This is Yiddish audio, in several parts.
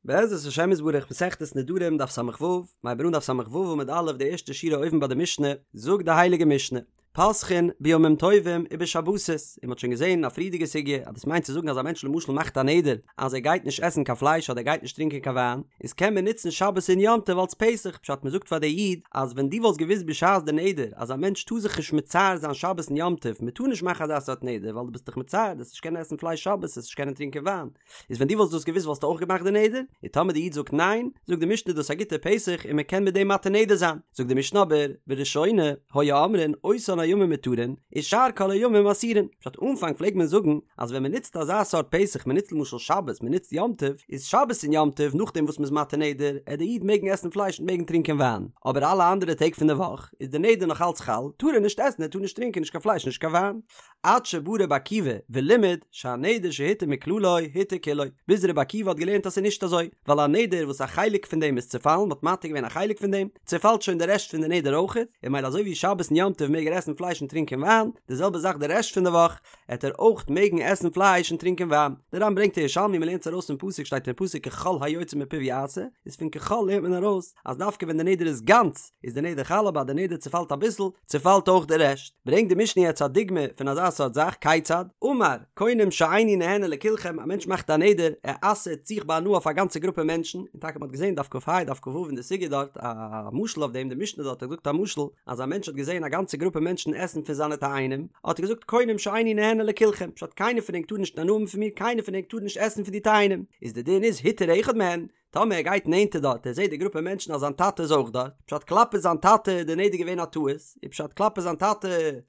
בעזרת השם יתברך מסכת נדרים דף ס"ו, מ'הייבט אן דף ס"ו עמוד א' די ערשטע שורה אויבן ביי די משנה, זאגט די הייליגע משנה, פותחין בימים טובים ובשבתות, און מ'האט שוין געזען אין א פריערדיגע סוגיא אז דאס מיינט צו זאגן אז א מענטש למשל מאכט א נדר אז ער גייט נישט עסן קיין פלייש אדער ער גייט נישט טרינקען קיין וויין, איז קען מען נוצן שבת און יום טוב אלס פתח, פשט מ'זאגט פאר די איד אז ווען דו וואלסט געוואוסט בשעת די נדר אז א מענטש טאר זיך נישט מצער זיין שבת און יום טוב, מ'טאר נישט מאכן אזא סארט נדר ווייל דו ביסט דיך מצער, דו וועסט נישט קענען עסן פלייש שבת, וועסט נישט קענען טרינקען וויין. איז ווען דו וואלסט דאס געוואוסט וואלסטו אויך געמאכט די נדר? און טאמער די איד זאגט ניין, זאגט די משנה דאס א גוטע פתח און מען קען מיט דעם מתיר נדר זיין. זאגט די משנה אבער, בראשונה, היו אומרים אותן הימים מותרין, ושאר כל הימים אסורין. פשט אנפאנג פלעגט מען זאגן אז ווען מען נוצט אזא סארט פתח, מען נוצט למשל שבת, מען נוצט יום טוב, איז שבת און יום טוב נאכדעם וואס מען איז מתיר נדר, עט די איד מעגן עסן פלייש און מעגן טרינקען וויין. אבער אלע אנדערע טעג פון די וואך איז די נדר נאך אלץ חל, טאר ער נישט עסן ער טאר נישט טרינקען נישט קיין פלייש נישט קיין וויין. עד שבא רבי עקיבא ולימד שהנדר שהותר מכללו הותר כולו, ביז רבי עקיבא האט געלערנט אז ס'איז נישט אזוי, ווייל א נדר וואס א חלק פון דעם איז צעפאלן, מ'האט מתיר געווען א חלק פון דעם, צעפאלט שוין די רעשט פון די נדר אויכעט, און ממילא אזוי ווי שבת און יום טוב מעג ער עסן פלייש און טרינקען וויין, די זעלבע זאך די רעשט פון די וואך, עט ער אויך מעגן עסן פלייש און טרינקען וויין. די ר"ן ברענגט א ירושלמי מ'לערנט עס ארויס פון פסוק שטייט אין פסוק ככל היוצא מפיו יעשה, איז פון ככל לערנט מען ארויס אז דווקא ווען די נדר איז גאנץ איז די נדר חל אבער אז די נדר צעפאלט אביסל, צעפאלט אויך די רעשט. ברענגט די משנה יעצט א דוגמא פון אזא סארט זאך, כיצד? אמר, קונם שאיני נהנה לכולכם, א מענטש מאכט א נדר, ער אסר'ט זיך בהנאה אויף א גאנצע גרופע מענטשן, און טאקע מ'האט געזען דף כ"ה דף כ"ו אין די סוגיא דארט א משל אויף דעם, די משנה דארט האט געזאגט א משל, אז א מענטש האט געזען א גאנצע גרופע מענטשן עסן פון זיינע תאנים, האט ער געזאגט קונם שאיני נהנה לכולכם, פשט קיינער פון ענק טאר נישט הנאה האבן פון מיר, קיינער פון ענק טאר נישט עסן פון די תאנים, איז די דין איז הותר אחד מהן, טאמער ער גייט נענטער דארט ער זעט די גרופע מענטשן אז זיין טאטע איז אויך דארט, פשט כלפי זיין טאטע איז די נדר געווען א טעות, און פשט כלפי זיין טאטע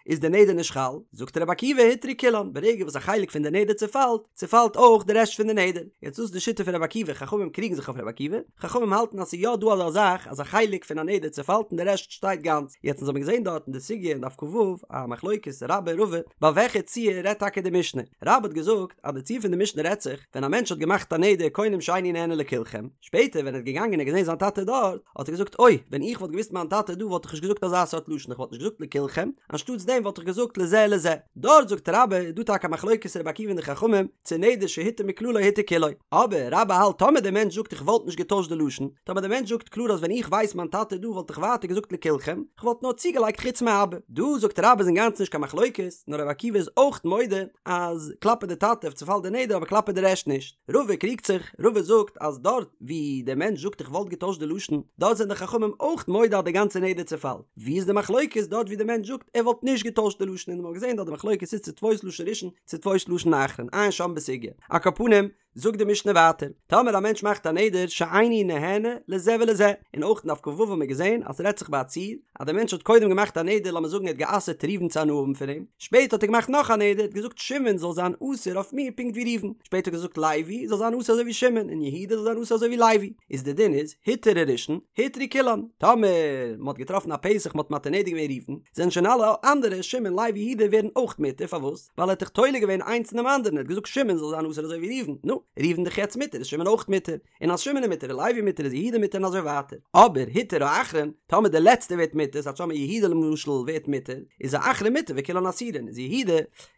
איז די נדר נישט חל, זאגט רבי עקיבא הותרו כולן, ברגע וואס א חלק פון די נדר צופאלט, צופאלט אויך די רעשט פון די נדר. יעצט דאס איז די שיטה פון רבי עקיבא, חכמים קריגן זיך אויף רבי עקיבא, חכמים האלטן אז ס'איז יא דא אזא זאך אז א חלק פון א נדר צופאלט און די רעשט שטייט גאנץ, יעצט אונז האבן געזען דארט אין די סוגיא אין דף כ"ו א מחלוקת רבה און רבא, ביי וועלכע ציור רעדט טאקע די משנה, רבה האט געזאגט אז די ציור פון די משנה רעדט זיך, ווען א מענטש האט געמאכט א נדר קונם שאיני נהנה לכולכם, שפעטער ווען ער איז געגאנגען און געזען זיין טאטע דארט, האט ער געזאגט אוי, ווען איך וואלט געוואוסט מיין טאטע איז דא וואלט איך נישט געזאגט אזא סארט לשון, איך וואלט נישט געזאגט לכולכם, אנשטאטס דעם וואלט איך געזאגט לזה ולזה. דארט זאגט רבה איז דא טאקע א מחלוקת רבי עקיבא און די חכמים, צו נדר שהותר מכללו הותר כולו. אבער רבה האלט טאמער דער מענטש זאגט איך וואלט נישט געטוישט די לשון, טאמער דער מענטש זאגט קלאר אז ווען איך ווייס מיין טאטע איז דא וואלט איך ווייטער געזאגט לכולכם, איך וואלט נאר צוגעלייגט חוץ מאבא. דא זאגט רבה איז אינגאנצן נישט קיין מחלוקת, נאר רבי עקיבא איז אויך מודה אז כלפי די טאטע צופאלט די נדר אבער כלפי די רעשט נישט. רבא קריגט זיך, רבא זאגט אז דארט ווי דער מענטש זאגט איך וואלט געטוישט די לשון, דארט זענען די חכמים אויך מודה אז די גאנצע נדר צופאלט. ווי איז די מחלוקת דארט ווי די מענטש זאגט ער וואלט נישט געטוישט די לשון און מ'האט געזען דארט די מחלוקת איז צו תפוס לשון ראשון צו תפוס לשון אחרון עיין שם בסוגיא. על כל פנים, זאגט די משנה ווייטער, טאמער א מענטש מאכט א נדר שאיני נהנה לזה ולזה, און אויך אין דף כ"ו האבן מיר געזען אז ס'רעדט זיך ביי א ציור, אז דער מענטש האט קודם געמאכט א נדר לאמיר זאגן ער האט גע'אסר'ט ראובן צו הנאה האבן פון אים, שפעטער האט ער געמאכט נאך א נדר, ער האט געזאגט שמעון זאל זיין אסור אויף מיר פונקט ווי ראובן, שפעטער האט ער געזאגט לוי זאל זיין אסור אזוי ווי שמעון, און יהודה זאל זיין אסור אזוי ווי לוי, איז די דין איז, הותר הראשון, הותרו כולן, טאמער מען האט געטראפן א פתח מען האט מתיר נדר געווען ראובן, זענען שוין אלע אנדערע, שמעון לוי יהודה ווערן אויך מותר, פארוואס? ווייל ער האט דאך תולה געווען איינס אינעם אנדערן, ער האט געזאגט שמעון זאל זיין אסור אזוי ווי ראובן, נו, ראובן דאך יעצט מותר איז שמעון אויך מותר, און אז שמעון איז מותר איז לוי מותר איז יהודה מותר און אזוי ווייטער, אבער הותר האחרון, טאמער דער לעצטער ווערט מותר, ס'הייסט טאמער יהודה למשל ווערט מותר, איז האחרון מותר וכולן אסורין, איז יהודה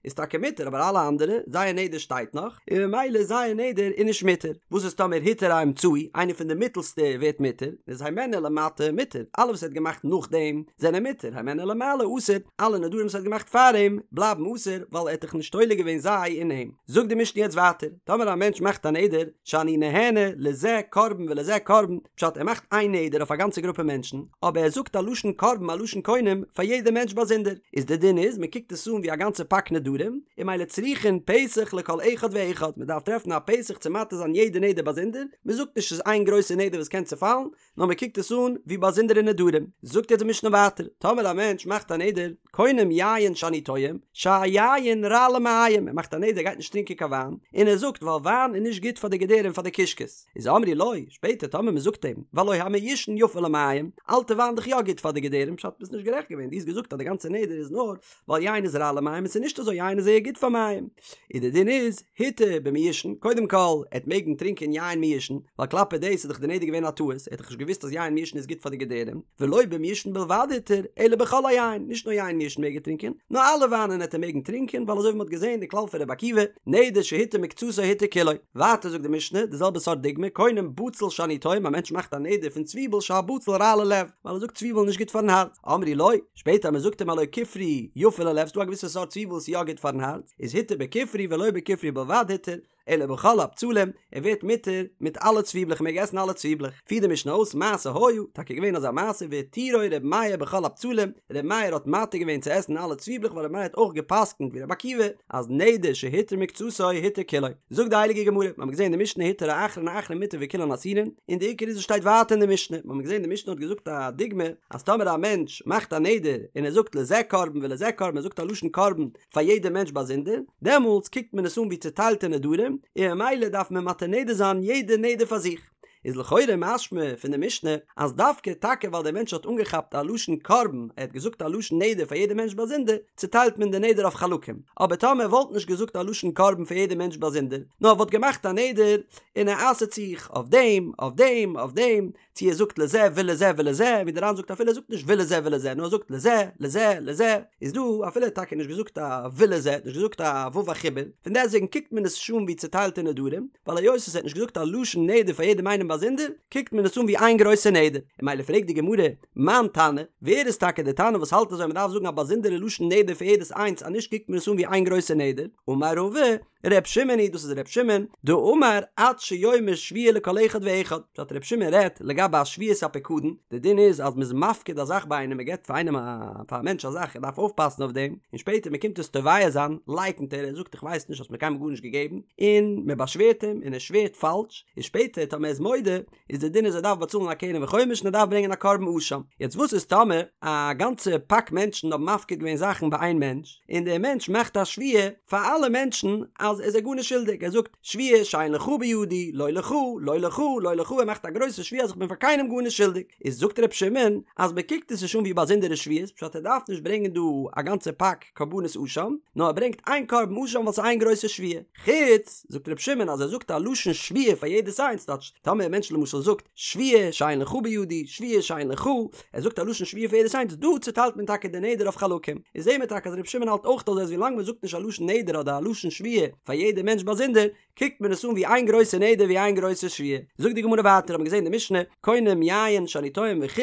איז טאקע מותר אבער אלע אנדערע, זייער נדר שטייט נאך, און ממילא זייער נדר איז נישט מותר, וואס איז טאמער הותר האמצעי, איינער פון די מיטעלסטע ווערט מותר, איז הימנו למטה מותר, אלע וואס ער האט געמאכט נאכדעם זענען מותר, הימנו למעלה אסור, אלע נדרים וואס ער האט געמאכט פאר אים בלייבן אסור ווייל ער האט דאך נישט תולה געווען זיי אין אים. זאגט די משנה יעצט ווייטער, טאמער א מענטש מאכט א נדר, שאני נהנה לזה קרבן ולזה קרבן, פשט ער מאכט איין נדר אויף א גאנצע גרופע מענטשן, אבער ער זאגט א לשון קרבן א לשון קונם פאר יעדע מענטש באזונדער, איז די דין איז מען קוקט עס אן ווי א גאנצע פאק נדרים, און ממילא צריכין פתח לכל אחד ואחד, מען דארף טרעפן א פתח צו מתיר זיין יעדע נדר באזונדער, מען זאגט נישט ס'איז איין גרויסע נדר וואס קען צופאלן, נאר מען קוקט עס אן ווי באזונדערע נדרים. זאגט יעצט די משנה ווייטער, טאמער א מענטש מאכט א נדר, קונם יין שאני טועם, שהיין רע למעיים, ער מאכט א נדר ער גייט נישט טרינקען קיין וויין, און ער זאגט ווייל וויין איז נישט גוט פאר די געדערים פאר די קישקעס, איז אמרו לו, שפעטער טאמער מען זאגט אים, והלא המיושן יפה למעיים, אלטע וויין דאך יא גוט פאר די געדערים, פשט ביסט נישט גערעכט געווען, דו האסט געזאגט אז די גאנצע נדר איז נאר ווייל יין איז רע למעיים און ס'איז נישט אזוי יין איז זייער גוט פאר מעיים. און די דין איז, הותר במיושן, קודם כל, ער וועט מעגן טרינקען יין מיושן, ווייל כלפי דאס איז דאך די נדר געווען א טעות, ער האט דאך נישט געוואוסט אז יין מיושן איז גוט פאר די געדערים, ולא במיושן בלבד הותר, אלא בכל היין, נישט נאר יין מיושן מעג ער טרינקען, נאר אלע וויינען העט ער מעגן טרינקען, ווייל אזוי ווי מ'האט געזען די כלל פון רבי עקיבא, נדר שהותר מקצתו הותר כולו. כולו. ווייטער זאגט די משנה די זעלבע סארט דוגמא, קונם בצל שאני טועם, א מענטש מאכט א נדר פון צוויבל שהבצל רע ללב, ווייל ער זאגט צוויבל איז נישט גוט פארן הארץ, אמרו לו, שפעטער אז מען זאגט אים הלא כופרי יפה ללב, ס'דא א געוויסע סארט צוויבל וואס איז יא גוט פארן הארץ, איז התיר בכופרי ולא בכופרי בלבד התיר, אלא בכל הבצלים, ער ווערט מותר מיט אלע צוויבלעך, מען מעג עסן אלע צוויבלעך. פירט די משנה אויס, מעשה היה, טאקע געווען אזא מעשה, והתירו ר' מאיר בכל הבצלים, ר' מאיר האט מתיר געווען צו עסן אלע צוויבלעך ווייל ר' מאיר האט אויך גע'פסק'נט ווי ר' עקיבא, אז נדר שהותר מקצתו הותר כולו. זאגט די הייליגע גמרא, מיר האבן געזען אין די משנה התיר האחרון האחרון מותר וכולן אסורין, און די עיקר איז עס שטייט ווייטער אין די משנה, מיר האבן געזען די משנה האט געזאגט א דוגמא, אז טאמער א מענטש מאכט א נדר און ער זאגט לזה קרבן ולזה קרבן, ער זאגט א לשון קרבן פאר יעדע מענטש באזונדער, דעמאלטס קוקט מען עס אן ווי צוטיילטע נדרים, און ממילא דארף מען מתיר נדר זיין יעדע נדר פאר זיך. איז לכאורה משמע פון די משנה אז דווקא טאקע ווייל דער מענטש האט אנגעכאפט א לשון קרבן, ער האט געזאגט א לשון נדר פאר יעדע מענטש באזונדער, צוטיילט מען די נדר אויף חלקים. אבער טאמער ער וואלט נישט געזאגט א לשון קרבן פאר יעדע מענטש באזונדער, נאר ער וואלט געמאכט א נדר און ער אסר'ט זיך אויף דעם, אויף דעם, אויף דעם, צו ער זאגט לזה ולזה ולזה, ווי דער ר"ן זאגט אפילו ער זאגט נישט ולזה ולזה נאר ער זאגט לזה, לזה, לזה, איז דא אפילו ער האט טאקע נישט געזאגט א ולזה, האט נישט געזאגט א ו' החיבור, פון דעסטוועגן קוקט מען עס נישט אן ווי צוטיילטע נדרים, ווייל היות עס האט נישט געזאגט א לשון נדר פאר יעדעם איינעם באזונדער, קוקט מען עס אן ווי איין גרויסע נדר. און ממילא פרעגט די גמרא, מאן תנא, ווער איז טאקע דער תנא וואס האלט אזוי אז מען דארף זאגן א באזונדערע לשון נדר פאר יעדעס איינס אז נישט קוקט מען עס אן ווי איין גרויסע נדר? אמר רבא, ר' שמעון היא דאס איז ר' שמעון, דאמר עד שיאמר שבועה לכל אחד ואחד, פשט ר' שמעון רעדט לגבי א שבועת הפיקדון, די דין איז אז מ'איז מפקיד א זאך ביי איינעם מ'געבט פאר איינעם א פאר א מענטש א זאך ער דארף אויפפאסן אויף דעם, און שפעטער מ'קומט עס תובע זיין לייקנט ער ער זאגט איך ווייס נישט האסט מיר קיינמאל גארנישט געגעבן, און מ'באשווערט אים און ער שווערט פאלש, און שפעטער טאמער ער איז מודה איז די דין איז ער דארף באצאלן א קרן וחומש און ער דארף ברענגען א קרבן אשם. יעצט וואס איז טאמער א גאנצע פאק מענטשן האבן מפקיד געווען זאכן ביי איין מענטש, און דער מענטש מאכט א שבועה פאר אלע מענטשן אז ער איז זיי גארנישט שולדיג, ער זאגט שבועה שאין לך בידי, לא לך, לא לך, לא לך, ער מאכט א גרויסע שבועה אז איך בין פאר קיינעם גארנישט שולדיג, איז זאגט ר' שמעון אז מען קוקט עס נישט אן ווי באזונדערע שבועות, פשט ער דארף נישט ברענגען דא א גאנצע פאק קרבנות אשם, נאר ער ברענגט איין קרבן אשם ווייל ס'איז איין גרויסע שבועה. חוץ, זאגט ר' שמעון אז ער זאגט א לשון שבועה פאר יעדעס איינס, טייטש, טאמער א מענטש למשל זאגט, שבועה שאין לך בידי, שבועה שאין לך, ער זאגט א לשון שבועה פאר יעדעס איינס, דא צוטיילט מען טאקע די נדר אויף חלקים. און זעהן מיר טאקע אז ר' שמעון האלט אויך אזוי אז ווילאנג מען זאגט נישט א לשון נדר אדער א לשון שבועה פאר יעדע מענטש באזונדער, קוקט מען עס אן ווי איין גרויסע נדר ווי איין גרויסע שבועה. זאגט די גמרא ווייטער האט מען געזעהן די משנה, קונם יין שאני טועם וכו',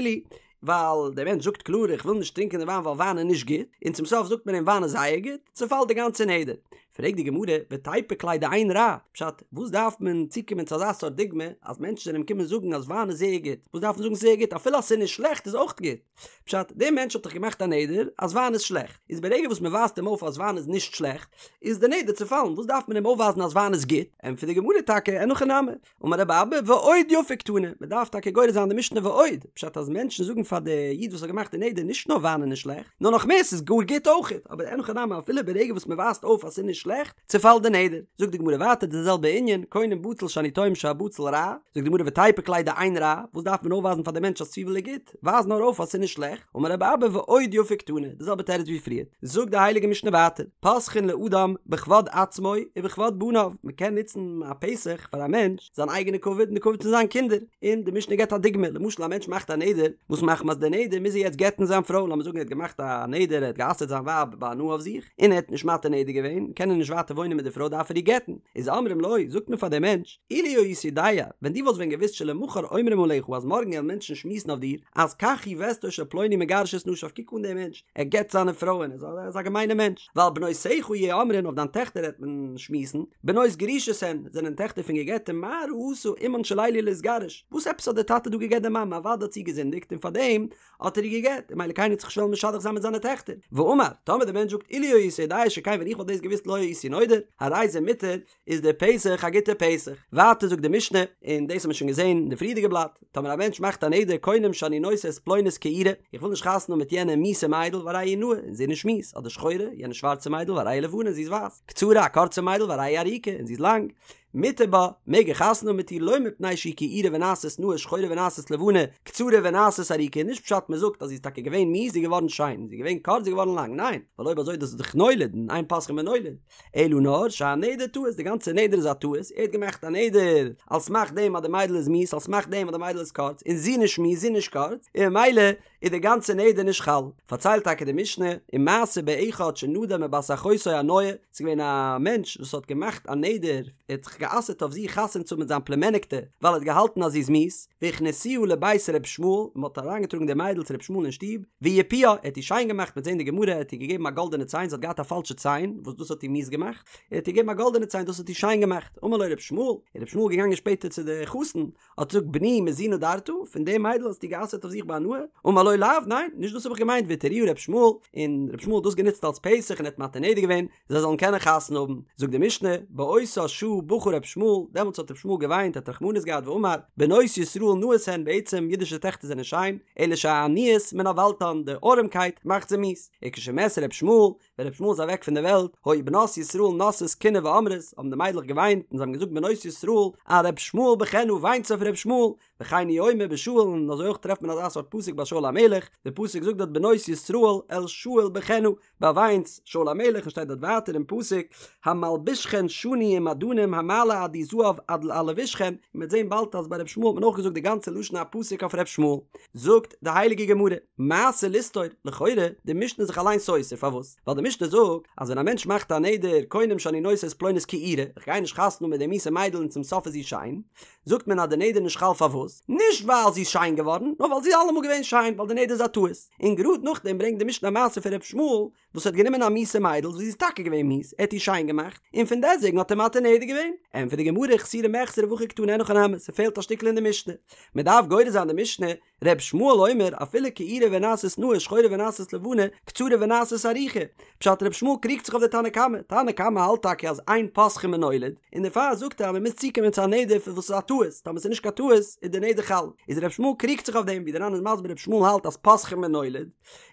ווייל דער מענטש זאגט קלאר איך וויל נישט טרינקען די וויין ווייל וויין איז נישט גוט, און צום סוף זאגט מען אים וויין איז זייער גוט, צעפאלט די גאנצע נדר. פרעגט די גמרא, ותיפוק ליה דאין רע, פשט, וואס דארף מען צוקומען צו אזא סארט דוגמא, אז מענטשן זענען אים קומען זאגן אז וויין איז זייער גוט, וואס דארף מען זאגן ס'איז זייער גוט, אפילו אז ס'איז נישט שלעכט איז אויך גוט. פשט, דער מענטש האט דאך געמאכט א נדר אז וויין איז שלעכט, איז ברגע וואס מען ווייזט אים אויף אז וויין איז נישט שלעכט, איז די נדר צעפאלן, וואס דארף מען אים אויפווייזן אז וויין איז גוט? ענטפערט די גמרא טאקע, אין הכי נמי, אמר רבי אבא ועוד יפה קתני, מען דארף טאקע גורס זיין די משנה ועוד, פשט אז מענטשן זאגן פאר די איד וואס האט געמאכט די נדר נישט נאר וויין איז נישט שלעכט, נאר נאך מער ס'איז גאר גוט אויכעט, אבער אין הכי נמי אפילו ברגע וואס מען ווייזט אויף אז ס'איז נישט שלעכט, צעפאלט די נדר. זאגט די גמרא ווייטער די זעלבע ענין, קונם בצל שאני טועם שהבצל רע, זאגט די גמרא ותיפוק ליה דאין רע, וואס דארף מען אויפווייזן פאר די מענטש אז צוויבל איז גוט, ווייז נאר אויף אז ס'איז נישט שלעכט, אמר רבי אבא ועוד יפה קתני, די זעלבע תירוץ ווי פריער. זאגט די הייליגע משנה ווייטער, פותחין לאדם בכבוד עצמו ובכבוד בניו, מען קען נוצן א פתח פאר א מענטש זיין אייגענע כבוד און די כבוד פון זיין קינדער, און די משנה געבט א דוגמא, למשל א מענטש מאכט א נדר, וואס מחמת די נדר מוז ער יעצט גט'ן זיין פרוי, לאמיר זאגן ער האט געמאכט א נדר ער האט גע'אסר'ט זיין ווייב בהנאה אויף זיך, און ער האט נישט מתיר נדר געווען, קען ער נישט ווייטער וואוינען מיט די פרוי דארף ער איר גט'ן, איז אומרים לו, זאגט מען פאר דעם מענטש, אילו היית יודע, ווען דו וואלסט ווען געוואוסט שלמחר אומרים עליך אז מארגן וועלן מענטשן שמועסן אויף דיר, אז כך היא וסתו של פלוני מגרש את נשיו קוק אן דעם מענטש, ער גט זיינע פרויען, ער איז א געמיינער מענטש, ועל בנותיך יהו אומרים אויף דיין טעכטער וועט מען שמועסן, בנות גרושות הן, זענען טעכטער פון געגעטע, מה ראתה אמן של אלו להתגרש, וואס עפעס האט דער טאטע דא געגט די מאמע, אוודאי האט זי געזינדיגט און פארדעם האט ער איר געגט, און ממילא קיינער וועט זיך נישט וועלן משדך זיין מיט זיינע טעכטער. ואמר, טאמער דער מענטש זאגט אילו הייתי יודע שכן ווען איך וואלט דאס געוואוסט לא הייתי נודר, הרי זה מותר, איז דער פתח א גוטער פתח. ווייטער זאגט די משנה, און דאס האט מען שוין געזען אין די פריערדיגע בלאט, טאמער א מענטש מאכט א נדר קונם שאני נושא את פלונית כעורה, איך וויל נישט חתונה האבן מיט יענע מיאוסע מיידל והרי היא נאה, און זי איז נישט מיאוס, אדער שחורה, יענע שווארצע מיידל והרי היא לבנה און זי איז ווייס, קצרה, א קורצע מיידל והרי היא ארוכה און זי איז לאנג, מותר בה, מעג ער חתונה האבן מיט איר לא מפני שהיא כעורה ונעשית נאה שחורה ונעשית לבנה, קצרה ונעשית ארוכה, נישט פשט מען זאגט אז זי איז טאקע געווען מיאוס זי איז געווארן שיין, זי איז געווען קורץ זי איז געווארן לאנג, ניין, ווייל אויב אזוי דאס איז דאך נולד און אין פותחין בנולד, אלא נאר שהנדר טעות, די גאנצע נדר איז א טעות, ער האט געמאכט א נדר על סמך דעם אז די מיידל איז מיאוס, על סמך דעם אז די מיידל איז קורץ, און זי נישט מיאוס זי נישט קורץ, און ממילא איז די גאנצע נדר נישט חל. פארציילט טאקע די משנה, ומעשה באחד שנדר מבת אחותו הנאה, ס'איז געווען א מענטש וואס האט געמאכט א נדר, ער האט זיך זיך גע'אסר'ט אויף זיך חתונה צו האבן מיט זיין פלומעניקטע ווייל ער האט געהאלטן אז זי איז מיאוס, והכניסוה לבית ר' ישמעאל, און מען האט אריינגעטראגן די מיידל צו ר' ישמעאל אין שטוב, ויפוה, ער האט איר שיין געמאכט מ'וועט זען די גמרא, ער האט איר געגעבן א גאלדענע ציין, זי האט געהאט א פאלשע ציין, וואס דאס האט איר מיאוס געמאכט, ער האט איר געגעבן א גאלדענע ציין, דאס האט איר שיין געמאכט, אמר לו ר' ישמעאל, איז ר' ישמעאל געגאנגען שפעטער צו די חתן, האט געזאגט בני מזו נדרת, פון די מיידל האסטו גע'אסר'ט אויף זיך בהנאה? אמר לו לאו, ניין, נישט דאס האב איך געמיינט, והתירוה ר' ישמעאל, און ר' ישמעאל האט דאס גענוצט אלס פתח און ער האט מתיר נדר געווען, זיי זאלן קענען חתונה האבן, זאגט די משנה, באותה שעה בכה ר' ישמעאל, דעמאלטס האט ר' ישמעאל געוויינט, האט רחמנות געהאט ואמר, בנות ישראל נאות הן, בעצם אידישע טעכטער זענען שיין, אלא שהעניות מנוולתן, די ארעמקייט מאכט זיי מיאוס, וכשמת ר' ישמעאל, ווען ר' ישמעאל איז אוועק פון די וועלט, היו בנות ישראל נושאות קינה ואומרות, האבן די מיידלעך געוויינט און זיי האבן געזאגט בנות ישראל, על ר' ישמעאל בכן, וויינטס אויף ר' ישמעאל, וכן הוא אומר בשאול, און אזוי אויך טרעפט מען אזא סארט פסוק ביי שאול המלך, די פסוק זאגט דארט בנות ישראל אל שאול בכן, באוויינטס שאול המלך און שטייט דארט ווייטער אין פסוק המלבישכן שני ומעדנים המעלה עדי זהב עד על לבושכן, און מ'וועט זען באלד אז ביי ר' ישמעאל האט מען אויך געזאגט די גאנצע לשון הפסוק אויף ר' ישמעאל. זאגט די הייליגע גמרא, מעשה לסתור, לכאורה, די משנה איז זיך אליין סותר, פארוואס? ווייל די משנה זאגט אז ווען א מענטש מאכט א נדר קונם שאני נושא את פלונית כעורה, איך גיי נישט חתונה האבן מיט די מיאוסע מיידל און צום סוף איז זי שיין, זאגט מען אז די נדר איז נישט חל פארוואס? נישט ווייל זי איז שיין געווארן, נאר ווייל זי איז אלעמאל געווען שיין, ווייל די נדר איז א טעות. און גראד נאכדעם ברענגט די משנה א מעשה פון ר' ישמעאל וואס האט גענומען א מיאוסע מיידל וואס זי איז טאקע געווען מיאוס, ער האט איר שיין געמאכט, און פון דעסטוועגן האט ער מתיר נדר געווען. ענטפערט די גמרא חסורי מחסרא והכי קתני אין הכי נמי, ס'פעלט א שטיקל אין די משנה. מ'דארף גורס זיין די משנה, ר' ישמעאל אומר אפילו כעורה ונעשית נאה שחורה ונעשית לבנה קצרה ונעשית ארוכה, פשט ר' ישמעאל קריגט זיך אויף די תנא קמא, תנא קמא האלט טאקע אז אין פותחין בנולד, און דערפאר זאגט ער אז מען מוז צוקומען צו א נדר פון וואס איז א טעות, טאמער ס'איז נישט קיין טעות איז די נדר חל, איז ר' ישמעאל קריגט זיך אויף דעם, ווי די ר"ן איז מסביר ר' ישמעאל האלט אז פותחין בנולד,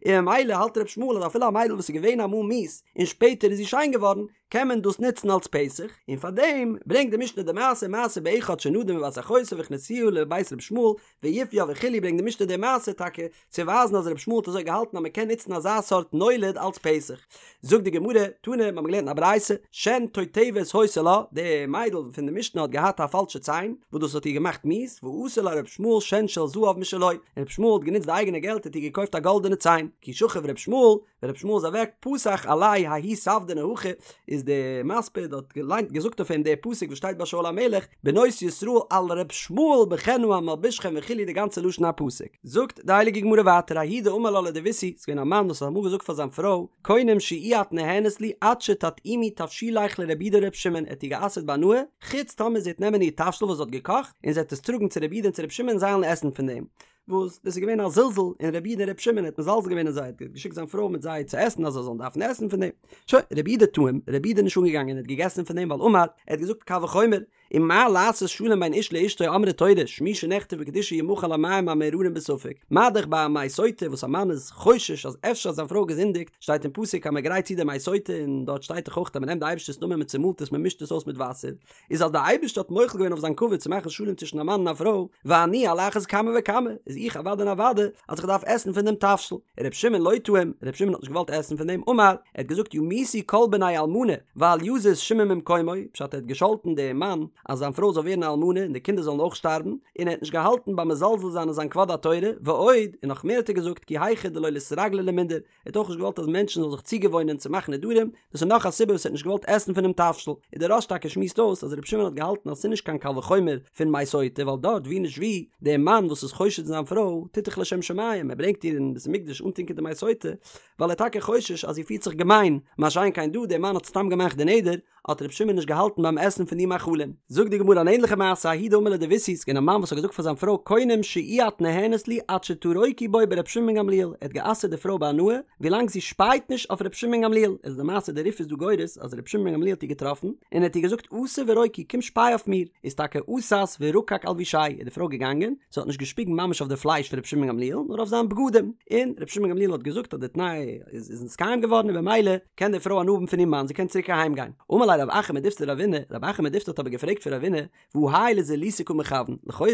און ממילא האלט ר' ישמעאל אז אפילו א מיידל וואס איז געווען אמאל מיאוס און שפעטער איז זי שיין געווארן, קען מען דאס נוצן אלס פתח, און פאר דעם ברענגט די משנה די מעשה מעשה באחד שנדר מבת אחותו והכניסוה לבית ר' ישמעאל ויפוה וכו' ברענגט די משנה די מעשה טאקע צו ווייזן אז ר' ישמעאל האט אזוי געהאלטן אז מען קען נוצן אזא סארט נולד אלס פתח. זאגט די גמרא, תנא, מיר האבן געלערנט אין א ברייתא, שן תותבת היתה לה, די מיידל פון די משנה האט געהאט א פאלשע ציין, וואס דאס האט איר געמאכט מיאוס, ועשה לה ר' ישמעאל שן של זהב משלו, און ר' ישמעאל האט גענוצט די אייגענע געלט האט איר געקויפט א גאלדענע ציין, כי שכיב ר' ישמעאל, ווען רבי ישמעאל איז אוועק פתח עליה ההוא ספדנא הכי איז די מספיד האט געליינט געזאגט אויף אים די פסוק וואס שטייט ביי שאול המלך בנות ישראל על ר' ישמעאל בכן המלבישכם וכו' די גאנצע לשון הפסוק זאגט די הייליגע גמרא ווייטער ההוא דאמר לה לדביתהו ס'איז געווען א מאן וואס האט אמאל געזאגט פאר זיין פרוי קונם שאי את נהנית לי עד שתטעימי תבשילך לרבי יהודה ורבי שמעון ער האט איר גע'אסר'ט בהנאה חוץ טאמער זי וועט נעמען איר תבשיל וואס זי האט געקאכט און זי וועט עס טראגן צו רבי יהודה און צו רבי שמעון און זיי וועלן עסן פון דעם וואס דאס איז געווען א זלזול אין רבי יהודה און רבי שמעון, ער האט מזלזל געווען אין זיי, ער האט געשיקט זיין פרוי מיט זיי צו עסן אז זיי זאלן דארפן עסן פון דעם. שוין, רבי יהודה טעים, רבי יהודה איז נישט אנגעגאנגען און האט געגעסן פון דעם ווייל אמר, ער האט געזאגט קל וחומר, ומה לעשות שלום בין איש לאשתו אמרה תורה, שמי שנכתב בקדושה ימחה על המים המאררים בספק, מה דאך ביי א מי סוטה וואס א מאן איז חושש אז אפשר האט זיין פרוי געזינדיגט, שטייט אין פסוק אז מען גרייט צו די מי סוטה און דארט שטייט דאך אויך אז מען נעמט די אייבערשטער'ס נאמען מען צומאלט עס מען מישט עס אויס מיט וואסער, איז אז דער אייבערשטער האט מוחל געווען אויף זיין כבוד צו מאכן שלום צווישן א מאן און א פרוי, ואני על אחת כמה וכמה, איז איך אוודאי און אוודאי אז איך דארף עסן פון דעם תבשיל. ר' שמעון לא טעים, ר' שמעון האט נישט געוואלט עסן פון דעם, אמר, ער האט געזאגט ימותו כל בני אלמנה, ואל יזוז שמעון ממקומו, פשט ער האט געשאלטן דעם מאן אז זיין פרוי זאל ווערן א אלמנה און די קינדער זאלן אויך שטארבן, און ער האט נישט געהאלטן ביים מזלזל זיין אין זיין כבוד התורה, ועוד, און נאך מער האט ער געזאגט כי היכי דלא ליתרגלו למינדר, ער האט אויך נישט געוואלט אז מענטשן זאלן זיך צוגעוואוינען צו מאכן נדרים, דאס איז נאך א סיבה וואס ער האט נישט געוואלט עסן פונעם תבשיל, און דער רא"ש טאקע שמועסט אויס אז רבי שמעון האט געהאלטן אז ס'איז נישט קיין קל וחומר פון מי סוטה ווייל דארט ווי נישט ווי, דער מאן וואס איז חושד אין זיין פרוי טוט דאך לשם שמים, ער ברענגט איר אין בית המקדש אנטונקען די מי סוטה, ווייל ער איז טאקע חושש אז זי פירט זיך געמיין, מה שאין כן דא, דער מאן האט סתם געמאכט די נדר, האט רבי שמעון נישט געהאלטן ביים עסן פון די מאכלים. זאגט די גמרא אן ענליכע מעשה, ההוא דאמר לדביתהו, ס'איז געווען א מאן וואס האט געזאגט פאר זיין פרוי קונם שאי את נהנית לי עד שתרוקי בו ברבי שמעון בן גמליאל, ער האט גע'אסר'ט די פרוי בהנאה ווילאנג זי שפייט נישט אויף רבי שמעון בן גמליאל, איז די מעשה די רי"ף איז דא גורס אז רבי שמעון בן גמליאל האט איר געטראפן און ער האט איר געזאגט אתי ורוקי קום שפיי אויף מיר, איז טאקע אתת ורקק אלבושיה איז די פרוי געגאנגען, זי האט נישט געשפיגן ממש אויף די פלייש פון רבי שמעון בן גמליאל נאר אויף זיין בגדים, און רבי שמעון בן גמליאל האט געזאגט אז די תנאי איז נתקיים געווארן און במילא קען די פרוי הנאה האבן פון איר מאן, זי קען צוריק אהיים גיין. אמר ליה רב אחא מדיפתי לרבינא, רב אחא מדיפתי האט אבער געפרעגט פון רבינא, והא האי לזילותא קא מכוון, לכאורה,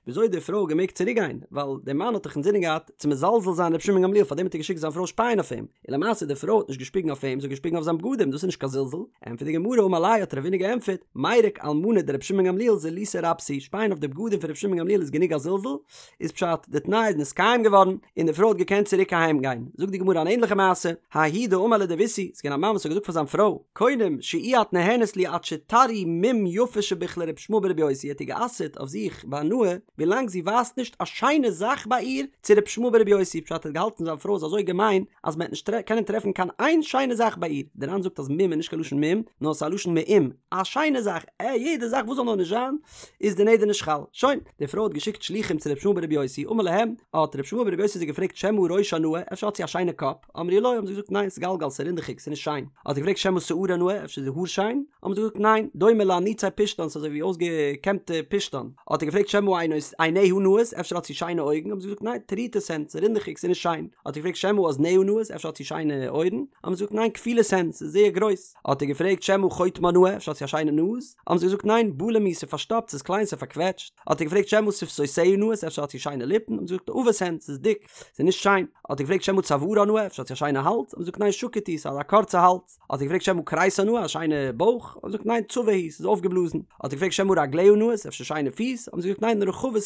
וויאזוי האט די פרוי געמעגט צוריק גיין, ווייל דער מאן האט דאך אינזינען געהאט צו מזלזל זיין רבי שמעון גמליאל פארדעם האט ער געשיקט זיין פרוי שפייען אויף אים, און למעשה די פרוי האט נישט געשפיגן אויף אים, זי האט געשפיגן אויף זיין בגדים, דאס איז נישט קיין זלזול, ענטפערט די גמרא, אמר ליה האט רבינא געענטפערט, מירק אלמנה דרבי שמעון גמליאל זילותא רבתא היא, שפייען אויף די בגדים פון רבי שמעון גמליאל איז גענוג א זלזול, איז פשט, די תנאי איז נתקיים געווארן, און די פרוי האט געקענט צוריק אהיים גיין. זאגט די גמרא אן ענליכע מעשה, ההוא דאמר לדביתהו, ס'איז געווען א מאן וואס האט געזאגט פאר זיין פרוי, קונם שאי את. את נהנית לי עד שתראי מום יפה שביך לר' ישמעאל בר' יוסי, האט איר גע'אסר'ט אויף זיך בהנאה ווילאנג זי ווייזט נישט א שיינע זאך ביי איר צו ר' ישמעאל בר' יוסי, פשט ער האט געהאלטן זיין פרוי איז אזוי געמיין אז מען וועט נישט קענען טרעפן קיין איין שיינע זאך ביי איר, דער ר"ן זאגט אז מום איז נישט קיין לשון מום נאר ס'איז א לשון מאום, א שיינע זאך, עה יעדע זאך וואס זאל נאר נישט זיין איז די נדר נישט חל. שוין, די פרוי האט געשיקט שלוחים צו ר' ישמעאל בר' יוסי, אמר להם, האט ר' ישמעאל בר' יוסי זיי געפרעגט שמא ראשה נאה, אפשר האט זי א שיינע קאפ? אמרו לו, האבן זיי געזאגט ניין, סגלגל, ס'איז רינדעכיג, ס'איז נישט שיין. האט ער געפרעגט שמא שערה נאה, אפשר איז די האר שיין? האבן זיי געזאגט ניין, דומה לאניצי פשתן, ס'איז אזוי ווי אויסגעקעמטע פשתן. האט ער געפרעגט שמא עיניה נאות, אפשר האט זי שיינע אויגן? האבן זיי געזאגט ניין, טרוטות הן, ס'איז רינדעכיג, ס'איז נישט שיין. האט ער געפרעגט שמא אזניה נאות, אפשר האט זי שיינע אויערן? האבן זיי געזאגט ניין, כפולות הן, ס'איז זייער גרויס. האט ער געפרעגט שמא חוטמה נאה, אפשר האט זי א שיינע נאז? האבן זיי געזאגט ניין, בלום הוא, ס'איז פארשטאפט, ס'איז קליין, ס'איז פארקוועטשט. האט ער געפרעגט שמא שפתותיה נאות, אפשר האט זי שיינע ליפן? האבן זיי געזאגט עבות הן, ס'איז דיק, ס'איז נישט שיין. האט ער געפרעגט שמא צוארה נאה, אפשר האט זי א שיינע האלז? האבן זיי געזאגט ניין, שקוט הוא, ס'איז א קורצע האלז. האט ער געפרעגט שמא כריסה נאה, א שיינע בויך? האבן זיי געזאגט ניין, צבה הוא, ס'איז אויפגעבלאזן. האט ער געפרעגט שמא רגליה נאות, אפשר שיינע פיס? האבן זיי געזאגט ניין, רחבות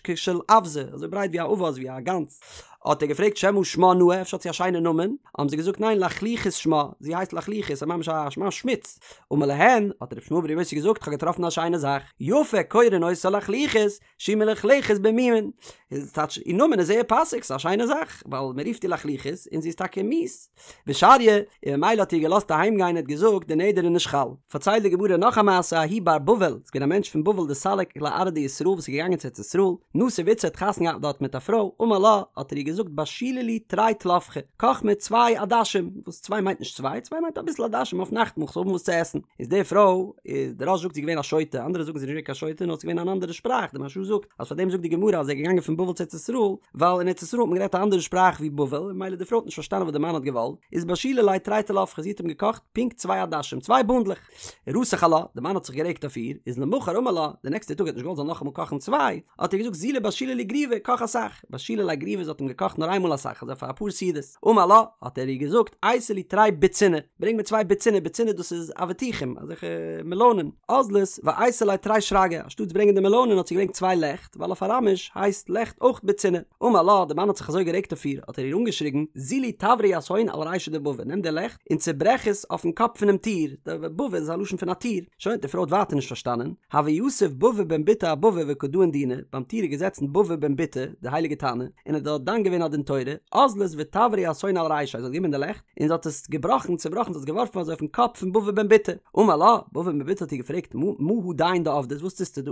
כשל אווזא, אזוי ברייט ווי א אווז, ווי א גאנז. האט ער געפרעגט שמא שמה נאה, אפשר האט זי א שיינע נאמען? האבן זיי געזאגט ניין, לחלוחית שמה, זי הייסט לחלוחית, ס'איז ממש א ממש שמוץ. אמר להן, האט ר' ישמעאל בר' יוסי געזאגט, כ'האב געטראפן א שיינע זאך, יפה קורין אותה לחלוחית, שהיא מלוכלכת במומין. איז טייטש איר נאמען איז זייער פאסיג, ס'איז א שיינע זאך, ווייל מען רופט איר לחלוחית און זי איז טאקע מיאוס. ושריא, און ממילא האט איר געלאזט אהיים גיין און האט געזאגט די נדר איז נישט חל. פארציילט די גמרא נאך א מעשה ההוא בר בבל, ס'איז געווען א מענטש פון בבל דסליק לארעא דישראל וואס איז געגאנגען צו ארץ ישראל, נסיב איתתא האט חתונה געהאט דארט מיט א פרוי, אמר לה, האט ער איר געזאגט בשילי לי תרי טלפחי, קאך מיר צוויי עדשים, וואס צוויי מיינט נישט צוויי, צוויי מיינט אביסל עדשים אויף נאכטמאל כ'זאל האבן וואס צו עסן, איז די פרוי, איז די רא"ש זאגט זי איז געווען א שוטה, אנדערע זאגן זי איז נישט געווען קיין שוטה נאר ס'איז געווען אן אנדערע שפראך, די מהרש"א זאגט אז פאר דעם זאגט די גמרא אז ער איז געגאנגען פון בבל צו ארץ ישראל, ווייל אין ארץ ישראל האט מען גערעדט א אנדערע שפראך ווי בבל, און ממילא די פרוי האט נישט פארשטאנען וואס די מאן האט געוואלט, איז בשילה ליה תרי טלפחי, זי האט אים געקאכט פונקט צוויי עדשים, צוויי בונדלעך. רתח עלה, די מאן האט זיך גערעגט אויף איר, איז למחר אמר לה, די נעקסטע טאג ער האט נישט געוואלט זי זאל נאכאמאל קאכן צוויי, האט ער געזאגט זילי בשילי לי גריוי, קאך אסאך, בשילה ליה גריוי זי האט אים געקאכט נאר איינמאל אסאך, אזוי פאר אפאר סעודות, אמר לה, האט ער איר געזאגט, אייתי לי תרי בוציני, ברענג מיר צוויי בוציני, בוציני דאס איז אבטיחים, אזעלכע מעלאנען, אזלת ואייתא ליה תרי שרגי, אנשטאטס ברענגען די מעלאנען האט זי געברענגט צוויי לעכט, ווייל אויף אראמיש הייסט לעכט אויך בוציני. אמר לה, די מאן האט זיך אזוי גערעגט אויף איר, האט ער איר אנגעשריגן, זילי תברי יתהון על רישא דבבא, נעם די לעכט און צעברעך עס אויפן קאפ פונעם טיר, די בבא איז א לשון פון א טיר. שוין, די פרוי האט ווייטער נישט פארשטאנען, הוה יתיב בבא בן בוטא אבבא וקא דאין דינא, ביים טיר איז געזעצן בבא בן בוטא, די הייליגע תנא, און האט דארט דן געווען א דין תורה, אזלת ותברה יתהון על רישיה, זי האט גענומען די לעכט, און זי האט עס געבראכן, צעבראכן, זי האט עס געווארפן אזוי אויפן קאפ פון בבא בן בוטא. אמר לה, בבא בן בוטא האט איר געפרעגט, מה הדין דעבדת, וואס טוסטו דא?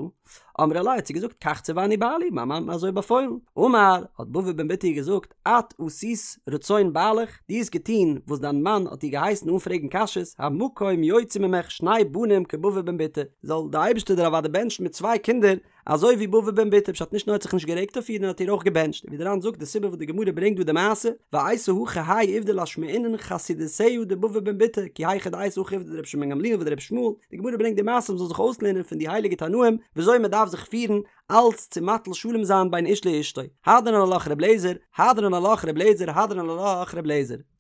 אמרה ליה האט זי געזאגט כך ציווני בעלי, מיין מאן האט מיר אזוי באפוילן. אמר, האט בבא בן בוטא איר געזאגט, את עשית רצון בעלך, דו האסט געטון וואס דיין מאן האט דיר געהייסן אן פרעגן קשיות, המקום יוציא ממך שני בנים כבבא בן בוטא, זאל די אייבערשטער דיר אוודאי בענטשן מיט צוויי קינדער אזוי ווי בבא בן בוטא, פשט נישט נאר האט זיך נישט גערעגט אויף איר נאר האט איר אויך געבענטשט, ווי דער ר"ן זאגט די סיבה וואס די גמרא ברענגט דא די מעשה, ואייתי הכא האי עובדא לאשמועינן חסידותיה דבבא בן בוטא, כי היכי דאייתי הכא עובדא דרבי שמעון בן גמליאל ודרבי ישמעאל, די גמרא ברענגט די מעשה מ'זאל זיך אויסלערנען פון די הייליגע תנאים וויאזוי מ'דארף זיך פירן אלץ צו מטיל שלום זיין בין איש לאשתו, הדרן עלך ר' אליעזר, הדרן עלך ר' אליעזר, הדרן עלך ר' אליעזר.